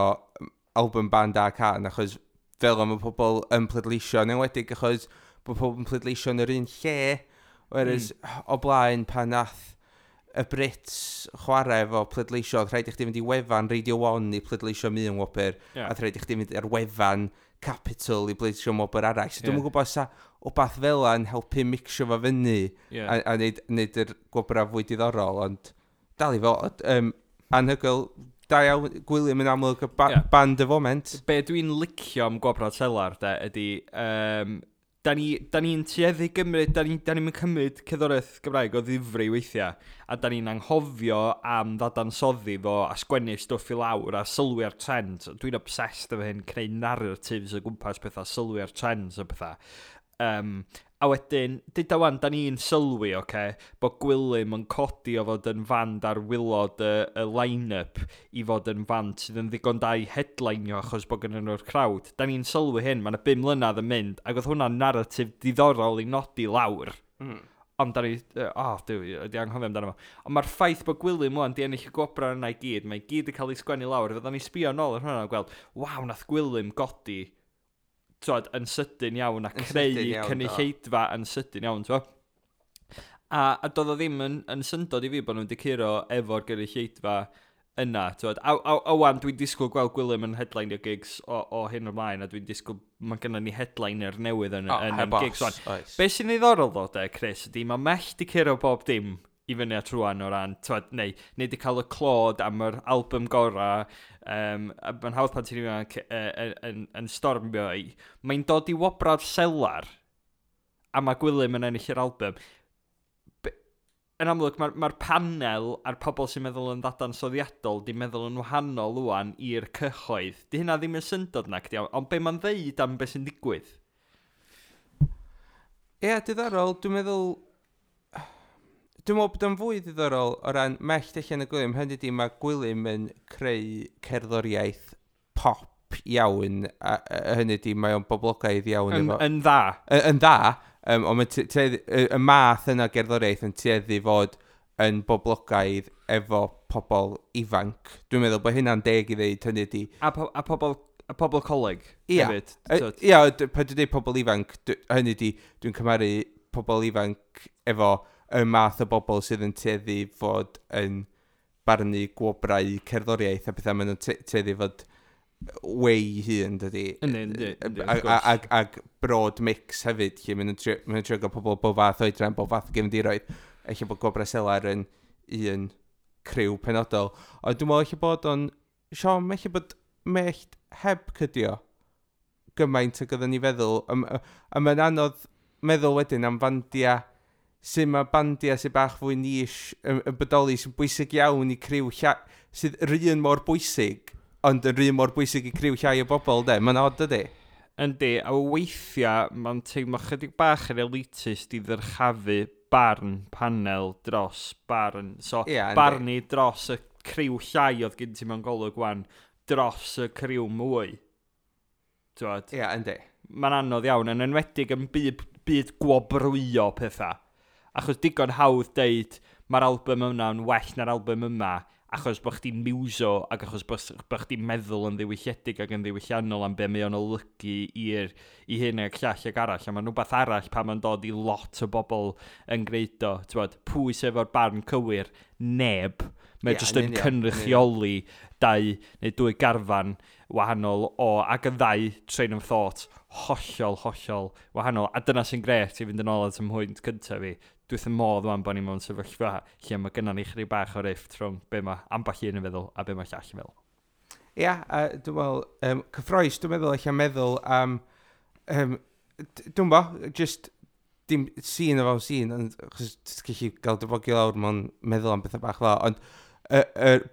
S1: album, band a can, achos fel am y pobl yn pleidleisio, yn enwedig achos bod pobl yn pleidleisio yn yr un lle, whereas o blaen pan nath y Brits chwarae efo pleidleisio, oedd rhaid i chdi fynd i wefan Radio 1 i pleidleisio am un wobr, a oedd rhaid i chdi fynd ar wefan Capital i pleidleisio am wobr arall. So dwi'm yn gwybod sa wbath fel yn helpu mixio fo fyny a neud yr gwobrau fwy diddorol, ond dal i fod. Anhygoel, da iawn, Gwilym yn amlwg y band y foment.
S2: Be dwi'n licio am Gwobrau Selar, de, ydy, da ni'n tueddu gymryd, da ni'n cymryd cerddoriaeth Gymraeg o ddifri weithiau, a da ni'n anghofio am ddadansoddi fo a sgwennu stwff i lawr a sylwi ar trends. Dwi'n obsessed efo hyn, creu narratives o gwmpas pethau, sylwi ar trends o pethau. A wedyn, dyda wan, da ni'n sylwi, oce, okay, bod Gwilym yn codi o fod yn fand ar waelod y line-up i fod yn fand sydd yn ddigon da i headlineio achos bod gen nhw'r crowd. Da ni'n sylwi hyn, mae yna 5 mlynedd yn mynd, ac oedd hwnna'n narratif diddorol i nodi lawr. Ond da ni, oh, dwi, wedi anghofio amdano fo. Ond mae'r ffaith bod Gwilym wan di ennill y gwobrau yna i gyd, mae i gyd yn cael ei sgwennu lawr, fydda ni sbio nôl ar hwnna a gweld, waw, nath Gwilym godi, twod, yn sydyn iawn a
S1: Yn
S2: creu
S1: sydyn iawn, do.
S2: cynulleidfa yn sydyn iawn, twod. A doedd o ddim yn syndod i fi bod nhw wedi curo efo'r gynulleidfa yna, twod. A wan, dwi'n disgwyl gweld Gwilym yn headline gigs o hyn ymlaen, a dwi'n disgwyl, mae gennym ni headliner newydd yn,
S1: O,
S2: yn,
S1: heb
S2: yn gigs
S1: os,
S2: wan.
S1: oes.
S2: Be sy'n ddiddorol ddo, de, Chris, ydy mae Mellt di curo bob dim i fyny at rwan o ran, twod, neu di cael y clod am yr album gora, a mae'n hawdd pan ti'n ifanc yn stormio i. Mae'n dod i wobra'r selar, a mae Gwilym yn ennill yr album. Yn amlwg, mae'r panel a'r pobl sy'n meddwl yn ddadansoddiadol di meddwl yn wahanol wan i'r cyhoedd. Di hynna ddim yn syndod na, cdi, ond be mae'n ddeud am beth sy'n digwydd?
S1: Ie, diddorol, dwi'n meddwl... Dwi'n meddwl bod o'n fwy diddorol o ran Mellt allan y Gwilym. Hynny ydi, mae Gwilym yn creu cerddoriaeth pop iawn, a hynny ydi, mae o'n boblogaidd iawn.
S2: Yn,
S1: efo,
S2: yn dda.
S1: Yn dda, ond mae y math yna o gerddoriaeth yn tueddu fod yn boblogaidd efo pobl ifanc. Dwi'n meddwl bod hynna'n deg i ddeud, hynny ydi.
S2: A pobl coleg hefyd. T'wod.
S1: Ia, pan dwi'n dweud pobl ifanc, hynny ydi, dwi'n cymharu pobl ifanc efo y math o bobl sydd yn tueddu fod yn barnu gwobrau cerddoriaeth a pethau, maen nhw'n tueddu fod way hun, dydy.
S2: Yndi, wrth gwrs.
S1: Ag broad mix hefyd, lle maen nhw'n trio gael pobl bob fath oedran, bob fath o gefndiroedd. Ella bod Gwobrau Selar yn un criw penodol. Ond dwi'n meddwl ella bod o'n... Siom, ella bod Mellt heb cydio gymaint ag oedden ni feddwl. A mae'n anodd meddwl wedyn am fandia sy'n mae bandia sy'n bach fwy niche yn bodoli sy'n bwysig iawn i criw sydd yr un mor bwysig, ond yr un mor bwysig i criw llai o bobl, de. Mae'n odd, dydy?
S2: Yndi, a weithiau mae'n teimlo chydig bach yn elitist i ddyrchafu barn panel dros barn. So,
S1: Ia, yndi.
S2: barnu dros y criw llai oedd gen ti mewn golwg wan, dros y criw mwy. T'wod?
S1: Ia, yndi.
S2: Mae'n anodd iawn, yn enwedig yn byd gwobrwyo pethau. Achos digon hawdd deud, mae'r album yma yn well na'r album yma, achos bod chdi'n muso ac achos bod chdi'n meddwl yn ddiwylliedig ac yn ddiwylliannol am be mae o'n olygu i hyn ac llall ac arall. A mae'n rhywbeth arall pan mae'n dod i lot o bobl yn gwneud o. T'wod, pwy sydd efo'r barn cywir? Neb. Mae jyst
S1: Yn
S2: yn
S1: union, yn union.
S2: cynrychioli dau neu dwy garfan wahanol o, ac y ddau train of thought hollol, hollol wahanol. A dyna sy'n gret i fynd yn ôl at y mhwynt cyntaf fi. Dwi wrth y modd wan bod ni mewn sefyllfa lle mae gynnon ni chydig bach o rift rhwng be mae ambell un yn feddwl a be mae llall yn feddwl.
S1: Ia, a dwi'n meddwl, cyffroes, dwi'n meddwl eich meddwl am, dwi'n bo, just dim sîn o fewn sîn, ond achos ti'n gallu gael dy bogio lawr mewn meddwl am bethau bach fel, ond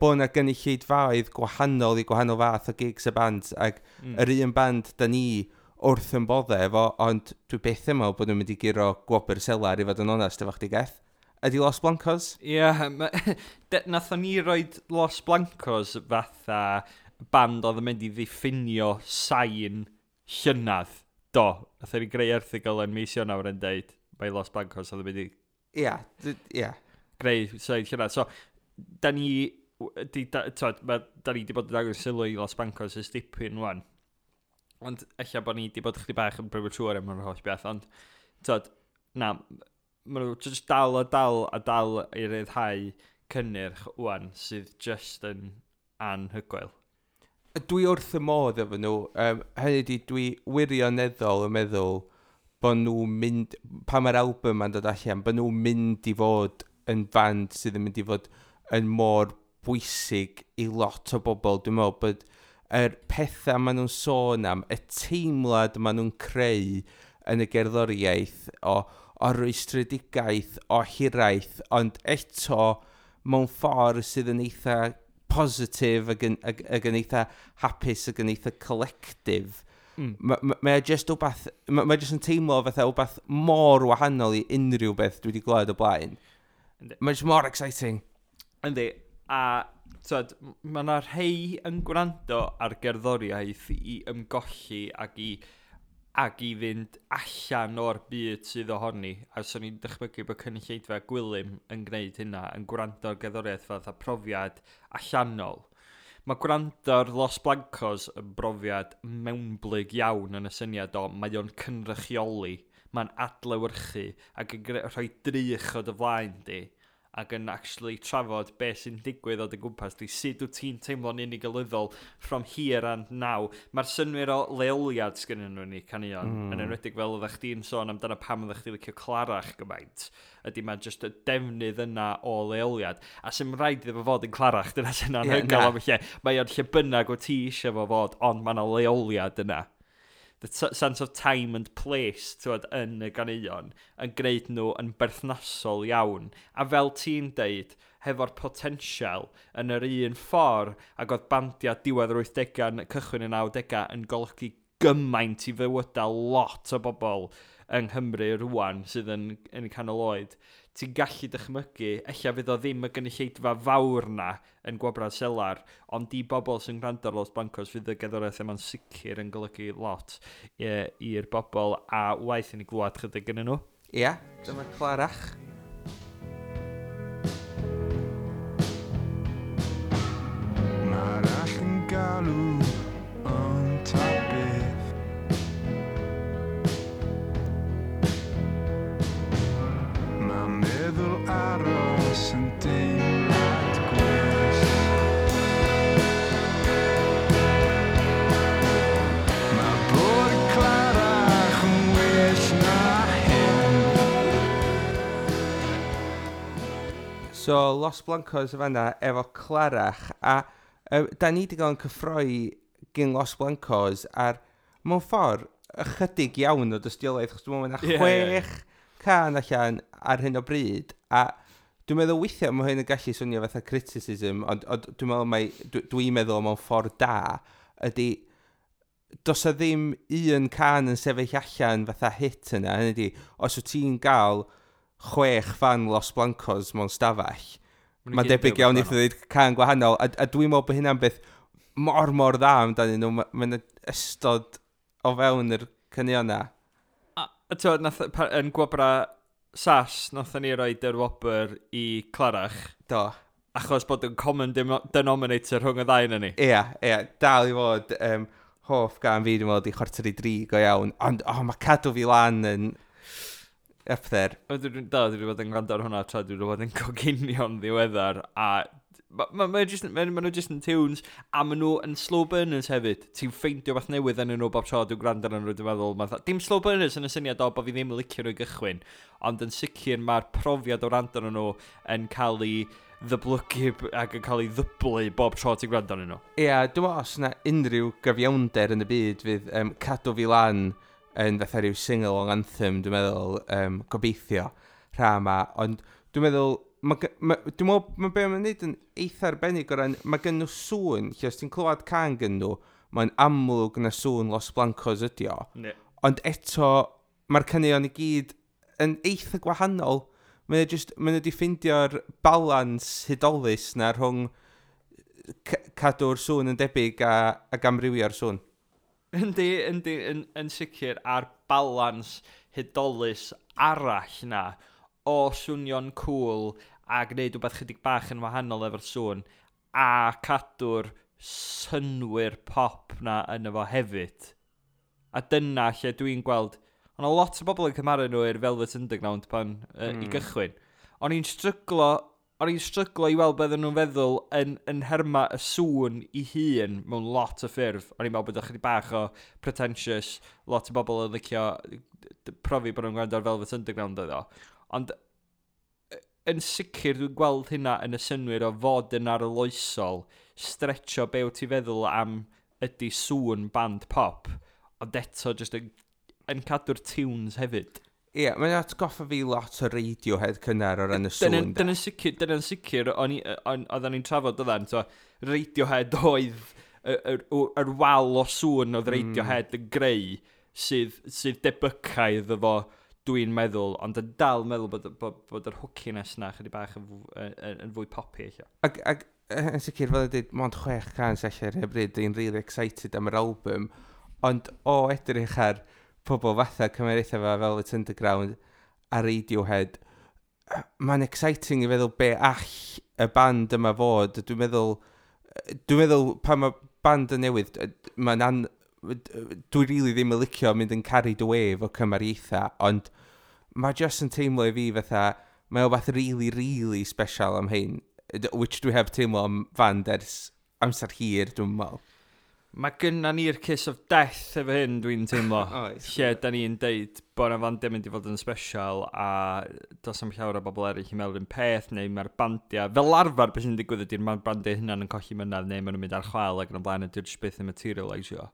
S1: bod yna gynulleidfaoedd gwahanol i gwahanol fath o gigs a bands, ac yr un band da ni wrth yn bodde efo, ond dwi byth yn meddwl bod nhw'n mynd i guro gwobr selar i fod yn onest efo chdi Geth. Ydy Los Blancos?
S2: Ie, yeah, nathon ni roid Los Blancos fatha band oedd yn mynd i ddiffinio sain llynadd. Do, nathon ni greu erthygl yn mis Ionawr yn deud mae Los Blancos oedd yn mynd i
S1: Ia, ia.
S2: greu sain llynadd. So, da ni, di, da, t'wod, da ni di bod yn dangos sylw i Los Blancos ers dipyn wan. Ond ella bod ni di bod chydig bach yn premature am yr holl beth, ond t'wod, na, ma' nhw jyst dal a dal a dal i ryddhau cynnyrch wan sydd jyst yn anhygoel.
S1: Dwi wrth y modd efo nhw. Hynny ydi, dwi wirioneddol yn meddwl bod nhw'n mynd, pan mae'r album ma'n dod allan, bod nhw'n mynd i fod yn band sydd yn mynd i fod yn mor bwysig i lot o bobl. Dwi'n meddwl bod yr pethau maen nhw'n sôn am, y teimlad maen nhw'n creu yn y gerddoriaeth o rwystredigaeth, o hiraeth, ond eto mewn ffordd sydd yn eitha positif ac yn eitha hapus ac yn eitha collective. Mae o jyst wbath, mae jyst yn teimlo fatha wbath mor wahanol i unrhyw beth dwi wedi glywed o blaen. Mae jyst mor exciting.
S2: Yndi, a t'wod, ma' 'na rhei yn gwrando ar gerddoriaeth i ymgolli ac i Ac i fynd allan o'r byd sydd ohoni. A swn i'n dychmygu bod cynulleidfa Gwilym yn gwneud hynna, yn gwrando ar gerddoriaeth fatha profiad allanol. Mae gwrando ar Los Blancos yn brofiad mewnblyg iawn yn y syniad o mae o'n cynrychioli, mae'n adlewyrchu ac yn rhoi drych o dy flaen di ac yn actually trafod beth sy'n digwydd o dy gwmpas di, sut wyt ti'n teimlo'n unigolyddol from here and now. Mae'r synnwyr o leoliad sgynnyn nhw ni caneuon, yn enwedig fel oeddech chdi'n sôn amdano pam oeddech chdi licio Clarach gymaint, ydy mae just y defnydd yna o leoliad. A sy'n rhaid iddo fo fod yn Clarach, dyna sy'n anhygoel am y lle. Mae o'n lle bynnag o ti eisiau fo fod, ond mae yna leoliad yna. The sense of time and place, t'wod, yn y ganeuon yn gwneud nhw yn berthnasol iawn. A fel ti'n deud, hefo'r potensial yn yr un ffordd ac oedd bandiau diwedd yr 80au yn cychwyn y 90au yn golygu gymaint i fywydau lot o bobl yng Nghymru rwan sydd yn canol oed. Ti'n gallu dychmygu, ella fydd o ddim y gynulleidfa fawr na yn Gwobrau Selar, ond i bobl sy'n gwrando ar Los Blancos fydd y gerddoriaeth yma'n sicr yn golygu lot i'r bobl, a waeth i ni glwad chydig gynnu nhw.
S1: Ia, dyma Clarach.
S3: Mae'r all yn galw ond ta beth. Mae meddwl aros yn deimlad gwell. Mae bod yn clarach yn well na hyn.
S1: So, Los Blancos y fanna efo Clarach, a da ni wedi cael yn cyffroi gyn Los Blancos ar, mewn ffordd, ychydig iawn o dystiolaeth, achos dwi'n meddwl mae 'na 6 can allan ar hyn o bryd, a dwi'n meddwl weithiau mae hyn yn gallu swnio fatha criticism, ond dwi'n meddwl mai, dwi'n meddwl mewn ffordd da, ydy, does 'na ddim un can yn sefyll allan fatha hit yna, hynny ydi, os wyt ti'n gael 6 fan Los Blancos mewn stafell,
S2: Ma' nhw
S1: mae'n
S2: gyd yn
S1: debyg
S2: deud
S1: iawn
S2: rhywbeth
S1: i ddweud can gwahanol, a dwi'n meddwl bod hynna'n beth mor mor dda amdanyn nhw, ma' 'na ystod o fewn yr caneuon 'na.
S2: A t'wod, nath, yn Gwobra SAS, nathon ni roid yr wobr i Clarach.
S1: Do.
S2: Achos bod yn common denominator rhwng y ddau yna ni.
S1: Ia, ia, dal i fod hoff gan fi, dwi'n meddwl, di 2:45 go iawn, ond oh, mae Cadw Fi Lan yn up there.
S2: O, dwi wedi bod yn gwrando ar hwnna tra dwi wedi bod yn coginio'n ddiweddar, a ma nhw just yn tunes, a ma nhw yn slow burners hefyd. Ti'n ffeindio beth newydd yn nhw bob tro dwi'n gwrando arnyn nhw, dwi'n meddwl. Ma dim slow burners yn y syniad o bod fi ddim yn licio nhw i gychwyn, ond yn sicr mae'r profiad o wrando arnyn nhw yn cael ei ddyblygu ac yn cael ei ddyblu bob tro ti'n gwrando arnyn nhw.
S1: Ia, dwi'n meddwl os yna unrhyw gyfiawnder yn y byd fydd Cadw Fi Lan yn fatha rhyw sing-along anthem, dwi'n meddwl, gobeithio, rha yma, ond dwi'n meddwl, dwi'n meddwl, ma' be mae'n neud yn eitha arbennig o ran, mae gen nhw sŵn, lle os ti'n clywed can gen nhw, mae'n amlwg na sŵn Los Blancos ydi o. Ond eto, mae'r caneuon i gyd yn eitha gwahanol. Mae nhw wedi ffeindio'r balans hudolus na rhwng cadw'r sŵn yn debyg ac amrywio'r sŵn.
S2: Yndi, yndi, yn sicr, a'r balans hudolus arall na o swnio'n cool a gwneud rhywbeth chydig bach yn wahanol efo'r sŵn a cadw'r synnwyr pop na yno fo hefyd. A dyna lle dwi'n gweld, ond o lot o bobl yn cymharu nhw i'r Velvet Underground pan i gychwyn. O'n i'n stryglo i weld beth nhw'n feddwl yn herma y sŵn i hun mewn lot o ffyrdd. O'n i'n meddwl bod o chydig bach o pretentious, lot o bobl yn licio profi bod nhw'n gwrando ar Velvet Underground oedd o. Ond yn sicr dwi'n gweld hynna yn y synnwyr o fod yn arloesol, stretcho be wyt ti'n feddwl am ydy sŵn band pop, ond eto jyst yn cadw'r tunes hefyd.
S1: Ie, mae'n atgoffa fi lot o Radiohead cynnar o ran y sŵn, de.
S2: Dyna'n sicr, oedden ni'n trafod oedden, so Radiohead oedd yr wal o sŵn oedd Radiohead yn greu sydd debycau iddo fo, dwi'n meddwl, ond yn dal meddwl bod yr hookiness na chydig bach yn fwy poppy, ella.
S1: Ac yn sicr, fel y dweud, mond 6 can sy'n allan ar hyn o bryd, dwi'n really excited am yr album, ond o edrych ar pobl fatha cymeriaethau fel Velvet Underground a Radiohead, mae'n exciting i feddwl be all y band yma fod. Dwi'n meddwl pan mae band yn newydd, dwi really ddim yn licio mynd yn carried away efo cymariaethau, ond mae just yn teimlo i fi fatha, mae o beth really, really special am hyn, which dwi heb teimlo am fand ers amser hir, dwi'n meddwl.
S2: Mae gynna ni'r kiss of death efo hyn, dwi'n teimlo.
S1: Oes.
S2: Lle da ni'n deud bod yna fandiau mynd i fod yn special a does am llawer o bobl eraill i meddwl un peth, neu mae'r bandiau, fel arfer beth sy'n digwydd ydy'r mae'r bandiau hynna'n yn colli mynadd neu maen nhw'n mynd ar chwal ac yn y blaen a dyw'r jyst byth yn materialisio.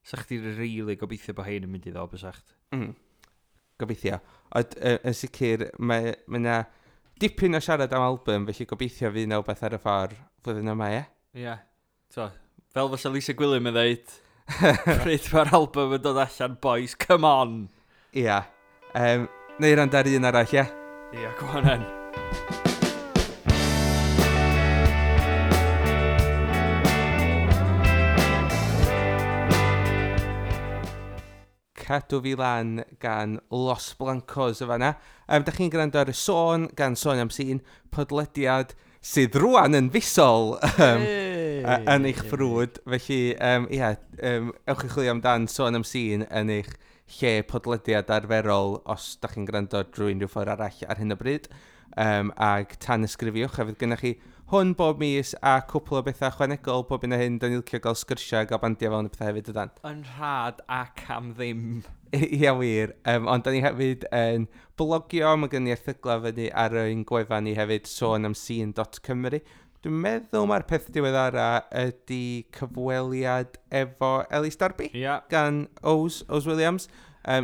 S2: Sa chdi really gobeithio bod hein yn mynd i ddod, bysach?
S1: Gobeithio. Ond yn sicr, mae 'na dipyn o siarad am album, felly gobeithio fydd 'na wbeth ar y ffordd flwyddyn yma, ie?
S2: Ie. Yeah. So, fel fysa Lisa Gwilym yn dweud, pryd mae'r album yn dod allan, boys, come on!
S1: Ia. Neu rand ar un arall, ie?
S2: Ie, yeah, go on then.
S1: Cadw Fi Lan gan Los Blancos y fanna. Da chi'n gwrando ar y Sôn gan Sôn am Sîn, podlediad sydd rwan yn fisol yn eich ffrwd. Felly, ia, ewch i chwilio amdan Sôn am Sîn yn eich lle podlediad arferol os da chi'n gwrando drwy unrhyw ffordd arall ar hyn o bryd. Ag tan ysgrifiwch, a fydd gennych chi hwn bob mis a cwpl o bethau ychwanegol bob un o hyn. Da ni'n licio gael sgyrsiau, gael bandiau fel yn y pethau hefyd ydan.
S2: Yn rhad ac am ddim.
S1: Ia wir, ond da ni hefyd yn blogio, mae gen i erthyglau fyny ar ein gwefan ni hefyd, sonamscene.cymru. Dwi'n meddwl mae'r peth diweddara ydy cyfweliad efo Elis Darby gan Ows, Ows Williams,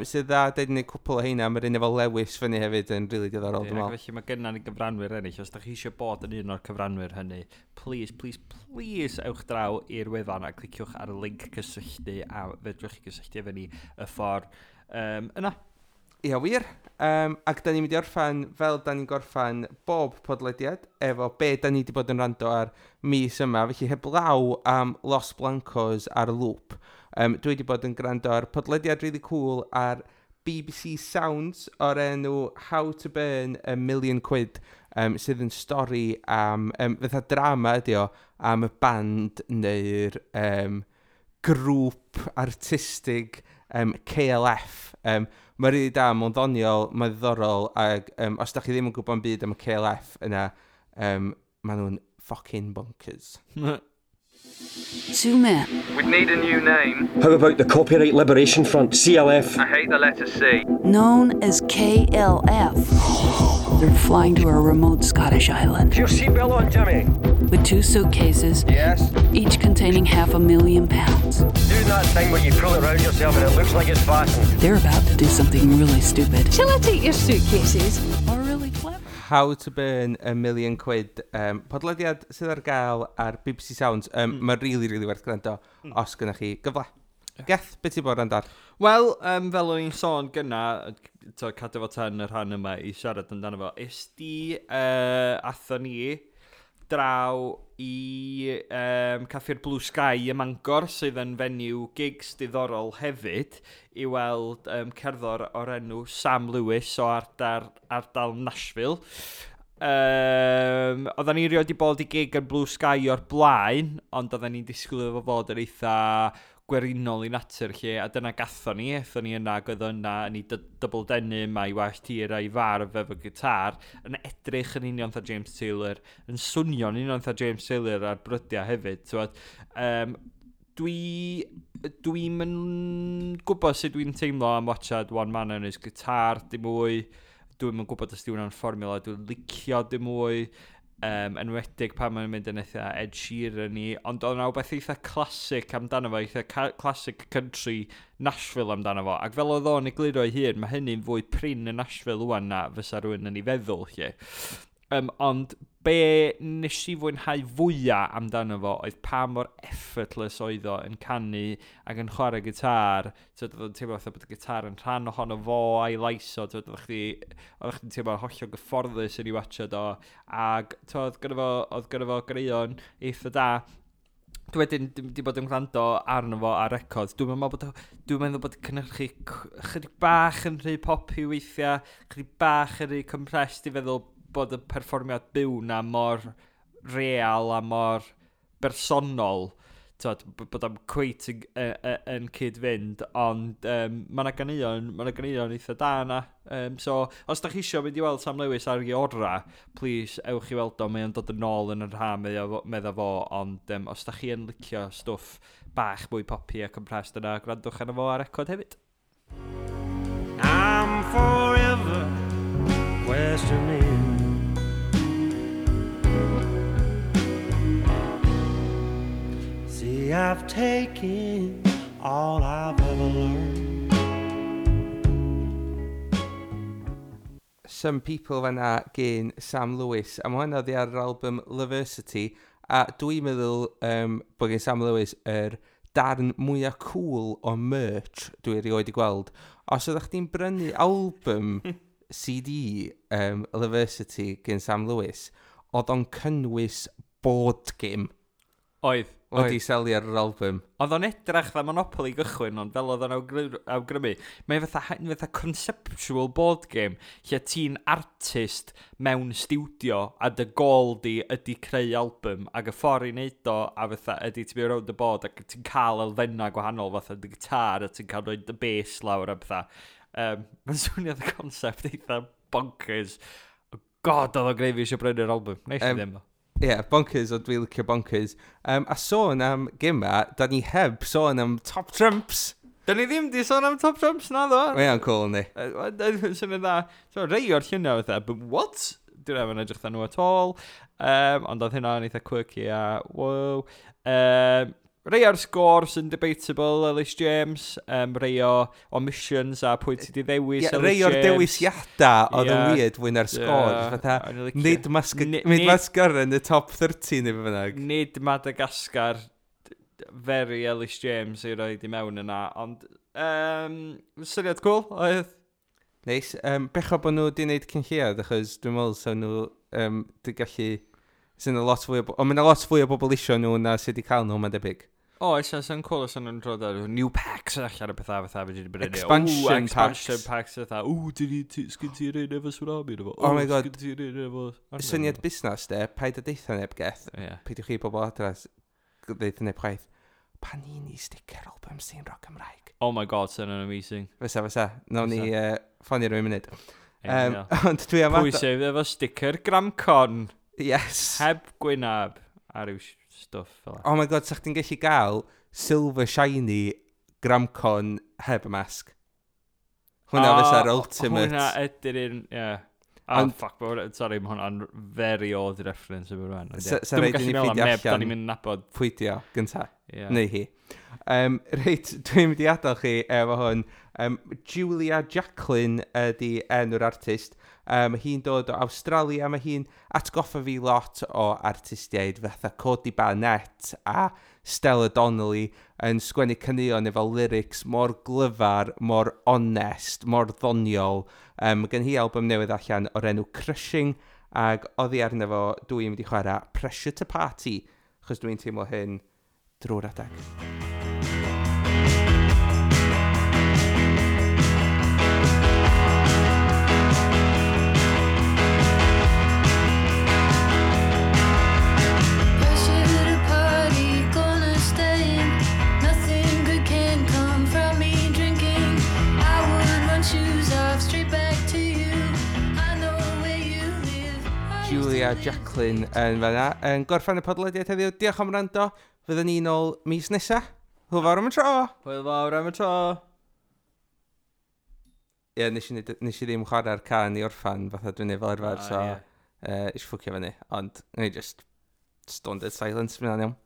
S1: sydd dda, dweud ni cwpl o heina, mae'r un efo Lewis fyny hefyd yn really diddorol, dwi'n
S2: Ac
S1: meddwl.
S2: felly mae gynna ni gyfranwyr eraill. Os da chi eisiau bod yn un o'r cyfranwyr hynny, please, please, please ewch draw i'r wefan a cliciwch ar y link cysylltu a fedrwch chi gysylltu efo ni y ffordd yna.
S1: Ia, wir. Ac da ni'n mynd i orffan fel da ni'n gorffan bob podlediad efo be da ni wedi bod yn rando ar mis yma. Felly heblaw am Los Blancos ar loop. Dwi wedi bod yn gwrando ar podlediad really cool ar BBC Sounds o'r enw How to Burn a Million Quid, sydd yn stori am, fatha drama ydi o, am y band neu'r grŵp artistig KLF. Mae'n rili da, mae'n ddoniol, mae'n ddiddorol, ac os da chi ddim yn gwybod yn byd am y KLF yna, maen nhw'n fucking bonkers.
S4: Two men
S5: We'd need a new name.
S6: How about the Copyright Liberation Front, CLF?
S5: I hate the letter C.
S4: known as KLF. They're flying to a remote Scottish island
S6: Your seatbelt on, Jimmy.
S4: with two suitcases,
S6: Yes.
S4: each containing £500,000.
S6: Do that thing where you pull it round yourself and it looks like it's fastened.
S4: They're about to do something really stupid
S7: Shall I take your suitcases?
S4: or really clever.
S1: How to Burn a Million Quid. Podlediad sydd ar gael ar BBC Sounds. Mae'n really, really werth gwrando os gynnwch chi gyfle. Geth, beth ti'n bod yn ar?
S2: Wel, fel o'n i'n sôn gynna, to, cadw fo tan y rhan yma i siarad amdano fo, is di, athon ni draw i Caffi'r Blue Sky ym Mangor, sydd yn venue gigs diddorol hefyd, i weld cerddor o'r enw Sam Lewis o ardal Nashville. Oedden ni rioed 'di bod i gig yn Blue Sky o'r blaen, ond oedden ni'n disgwyl iddo fo fod yn eitha gwerinol i natur lle, a dyna gathon ni, aethon ni yna, ac oedd o yna yn ei double denim a'i wallt hir a'i farf efo gitar, yn edrych yn union fatha James Taylor, yn swnio'n union fatha James Taylor ar brydiau hefyd, t'wod. Dwi'n yn gwybod sut dwi'n teimlo am watchad One Man and His Guitar, dim mwy. Dwi'm yn gwybod os di hwnna'n fformula dwi'n licio dim mwy. Enwedig pan mae'n mynd yn eitha Ed Sheeran i, ond oedd yna wbeth eitha classic amdano fo, eitha classic country Nashville amdano fo, ac fel oedd o'n egluro ei hun, mae hynny'n fwy prin yn Nashville wan na fysa rhywun yn ei feddwl, lle. Ond be nes i fwynhau fwyaf amdano fo oedd pa mor effortless oedd o yn canu ac yn chwarae gitar. Tyd, oedd o'n teimlo fatha bod y gitar yn rhan ohono fo a'i lais o. Tyd, oedd chdi'n teimlo hollol gyfforddus yn ei watchad o. Ac tyd, oedd gynno fo ganeuon eitha da. Dwi wedyn di bod yn gwrando arno fo ar record. Dwi'n meddwl bod cynhyrchu chydig bach yn rhy poppy weithiau, chydig bach yn rhy compressed i feddwl bod y perfformiad byw na mor real a mor bersonol. T'wod, bod o'n cweit yn cyd-fynd, ond mae yna ganeuon eitha da yna. So, os da chi isio mynd i weld Sam Lewis ar ei ora, please, ewch i weld o, mae o'n dod yn ôl yn yr ha, medda fo, ond os da chi yn licio stwff bach mwy poppy a compressed yna, gwrandwch arno fo ar record hefyd.
S3: I'm forever questioning. See, I've taken all I've ever learned.
S1: Some People fanna gen Sam Lewis. A mae hwnna oddi ar yr album Loversity. A dwi'n meddwl bod gen Sam Lewis yr darn mwyaf cool o merch dwi erioed i gweld. Os ydych chdi'n brynu album CD Loversity gen Sam Lewis, oedd o'n cynnwys board game.
S2: Oedd.
S1: Wedi selio ar yr album.
S2: Oedd o'n edrach dda Monopoly gychwyn, ond fel oedd o'n awgrymu, mae fatha conceptual board game, lle ti'n artist mewn studio, a dy gol di ydy creu album, ac y ffordd i wneud o, a fatha ydy ti'n mynd rownd y board, ac ti'n cael elfennau gwahanol, fatha dy gitar, a ti'n cael rhoi dy bass lawr a pethau. Mae'n swnio y concept eitha bonkers. God, oedd o'n greu fi eisiau brynu'r album. Neis i ddim.
S1: Ie, yeah, bonkers, ond dwi'n licio bonkers. A sôn am gema, da ni heb sôn am Top Trumps.
S2: Da ni ddim di sôn am Top Trumps na ddo.
S1: Mae o'n cool, yndi.
S2: Sy'n dda. So, rei o'r lluniau fatha, but what? Dwi'n ddim yn edrych dda nhw at all. Ond oedd hynna'n eitha quirky a wow. Rei o'r sgôr sy'n debatable, Ellis James. Rei o omissions a pwy ti di ddewis,
S1: yeah,
S2: Ellis
S1: rei o'r
S2: James.
S1: Dewisiadau oedd yn weird fwy na'r sgôr. Fatha, nid Mascar yn y top 30 neu be bynnag.
S2: Nid Madagascar, very Ellis James i roed i mewn yna, ond syniad cool oedd.
S1: Neis. Bechod bod nhw wedi gwneud cyn lleiad, achos dwi'n meddwl so nhw di gallu... Sy'n a lot fwy o... Ond mae'n lot fwy o bobl isio nhw na sydd wedi cael nhw, mae'n debyg.
S2: O, oes, sy'n cool os nhw'n rhoi ar new packs allan o pethau fatha fe wedi brynu.
S1: Expansion packs.
S2: Expansion packs fatha. Ww, sgyn ti'r un efo tsunami efo.
S1: Oh my god.
S2: Sgyn ti'r un efo...
S1: Syniad busnes de, paid a deitha neb geth.
S2: Yeah.
S1: Peidiwch chi bobl adra ddeitha neb chwaith. Panini sticker album sy'n rock Cymraeg.
S2: Oh my god, sy'n amazing.
S1: Fysa. Nawn ni ffonio rhywun munud. Ond dwi am...
S2: Pwy sydd efo sticker Gramcon?
S1: Yes.
S2: Heb gwynab a ryw stwff fel.
S1: Oh my god, sa chdi'n gallu gael silver shiny Gramcon heb y masg. Hwna fysa'r ultimate.
S2: Hwna ydy'r un, ie. Oh, fuck, sorry, mae hwnna'n very odd reference yma rwan.
S1: Sa rhaid i ni ffeindio allan.
S2: Da ni'n mynd nabod.
S1: Pwy di o, gynta.
S2: Yeah.
S1: Neu hi. Reit, dwi'n mynd i adael chi efo hwn. Julia Jacklin ydy enw'r artist. Hi'n dod o Awstralia, mae hi'n atgoffa fi lot o artistiaid fatha Cody Barnett a Stella Donnelly yn sgwennu caneuon efo lyrics mor glyfar, mor onest, mor ddoniol. Mae gen hi album newydd allan o'r enw Crushing, ac oddi arno fo dwi'n mynd i chwarae Pressure to Party, achos dwi'n teimlo hyn drwy'r adeg. Julia Jacklin yn fanna yn gorffen y podlediad heddiw. Diolch am wrando. Fyddwn ni nôl mis nesa. Hwyl fawr am y tro.
S2: Hwyl fawr am y tro.
S1: Ie, nes i ddim chwarae'r can i orffan fatha dwi'n neud fel arfer, so eisiau ffwcio fyny. Ond, ni just stone dead silence, fydd hwnna'n iawn.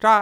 S1: Tra!